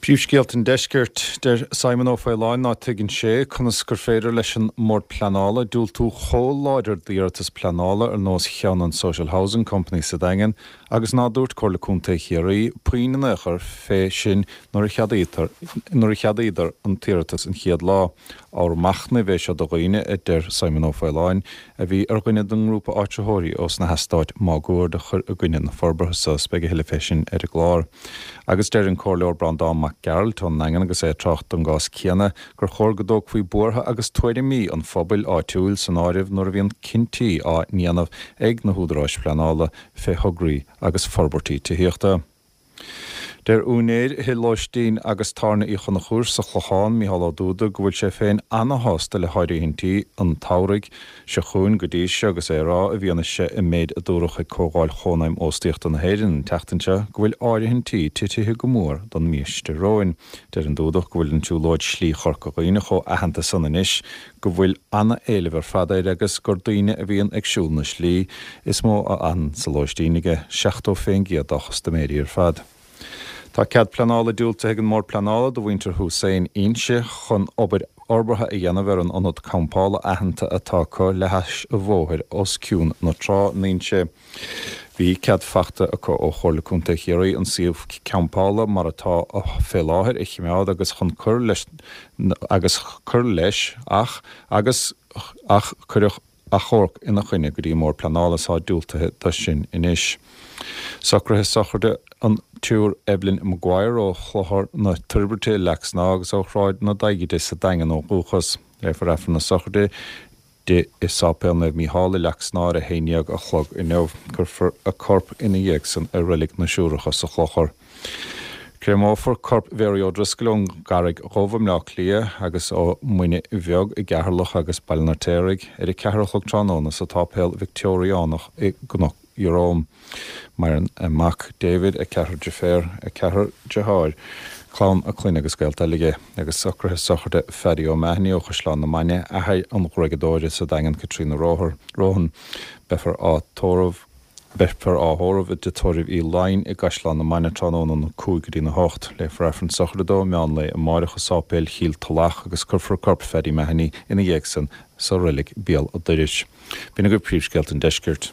Príomhscéalta an Deiscirt, Deir Simon Ó Faoláin ná tuigeann sé conas gur féidir leis an mBord Pleanála diúltú chomh láidir d'iarratas pleanála ar nós cheann an Social Housing Company sa Daingean agus ná dúirt Comhairle Contae Chiarraí puinn in aon chor fé sin nuair a cheadaítear nuair a cheadaíodar an t-iarratas an chéad lá. Ábhar machnaimh é seo do dhaoine, a deir Simon Ó Faoláin, a bhí ar dhuine den ngrúpa áitritheoirí ós na heastáit máguaird a chuir i gcoinne na forbartha so. Beidh a thuilleadh fé sin ar an gclár. Agus deir an Comhairleoir Breandán Mac Gearailt ón nDaingean agus é ag trácht don gcás céanna gur chóir go dtógfaí buartha agus tuairimí an phobail áitiúil san áireamh nuair a bhíonn cinntí á ndéanamh ag na húdaráis phleanála fé thograí agus forbairtí tithíochta. Deir úinéir thigh lóistín agus tábhairne Uí Chonchúir sa Chlochán, Micheál Ó Dúda, go bhfuil sé féin ana-shásta le háirithintí an tsamhraidh seo chugainn go dtí seo agus é ag rá, i bhfianaise an méid a dúradh ag Comhdháil Chónaidhm Óstaíochta na hÉireann an tseachtain seo, go bhfuil áirithintí titithe go mór don mhí seo romhainn. Deir an Dúdach go bhfuil an tsiúlóid Slí Chorca Dhuibhne chomh aitheanta san anois go bhfuil ana-éileamh ar fad air agus gur daoine a bhíonn ag siúl na slí is mó a fhanann sa lóistín aige, 70% dá chustaiméirí ar fad. Tá cead pleanála diúltaithe ag an mBord Pleanála do mhuintir Hussein Inse chun obair fhorbartha a dhéanamh ar an ionad campála aitheanta atá acu le hais an bhóthair os cionn na trá in Inse. Bhí cead fachta acu ó Chomhairle Contae Chiarraí an suíomh campála mar atá fé láthair a chimeád agus chun cur leis agus cur leis ach agus ach cuireadh achomharc ina choinne go dtí an mBord Pleanála is tá diúltaithe do sin anois. Socruithe sochraide an tSiúr Evelyn Maguire ó Chlochar na Toirbhirte i Leac Snámha agus ó Shráid na Daighide sa Daingean ó dhúchas. Léifear Aifreann na sochraide di i Sáipéal Naomh Mícheál i Leac Snámha ar a 11 a chlog inniu. Cuirfear a corp ina dhiaidh san i Reilig na Siúracha sa Chlochar. Créamófar corp Mhary O'Driscoll ón gCarraig Dhubh i mBleá Cliath agus ó Mhuine Bheag i gCeatharlach agus Baile an Fheirtéaraigh ar a 4 a chlog tráthnóna sa tSáipéal Victeoiriánach i gCnoc Ieróm. Maireann a mac David, a ceathrar deirféar, a ceathrar deartháir, clann a clainne agus gaolta eile aige, agus socruithe sochraide Phaddy O'Mahony ó Chaisleán na Mainge, athair an ghruaigeadóra sa Daingean Caitríona Rohan. Beifear á tórramh Beifear á thórramh i dTigh Tórraimh Uí Laighin i gCaisleán na Mainge tráthnóna óna 5 go dtína 8. Léifear Aifreann sochraide dó meán lae amáireach i Sáipéal Chill Tulach agus cuirfear corp Phaddy Mahony ina dhiaidh san sa reilig Béal a' Dorais. B'in agaibh príomhscéalta an deiscirt.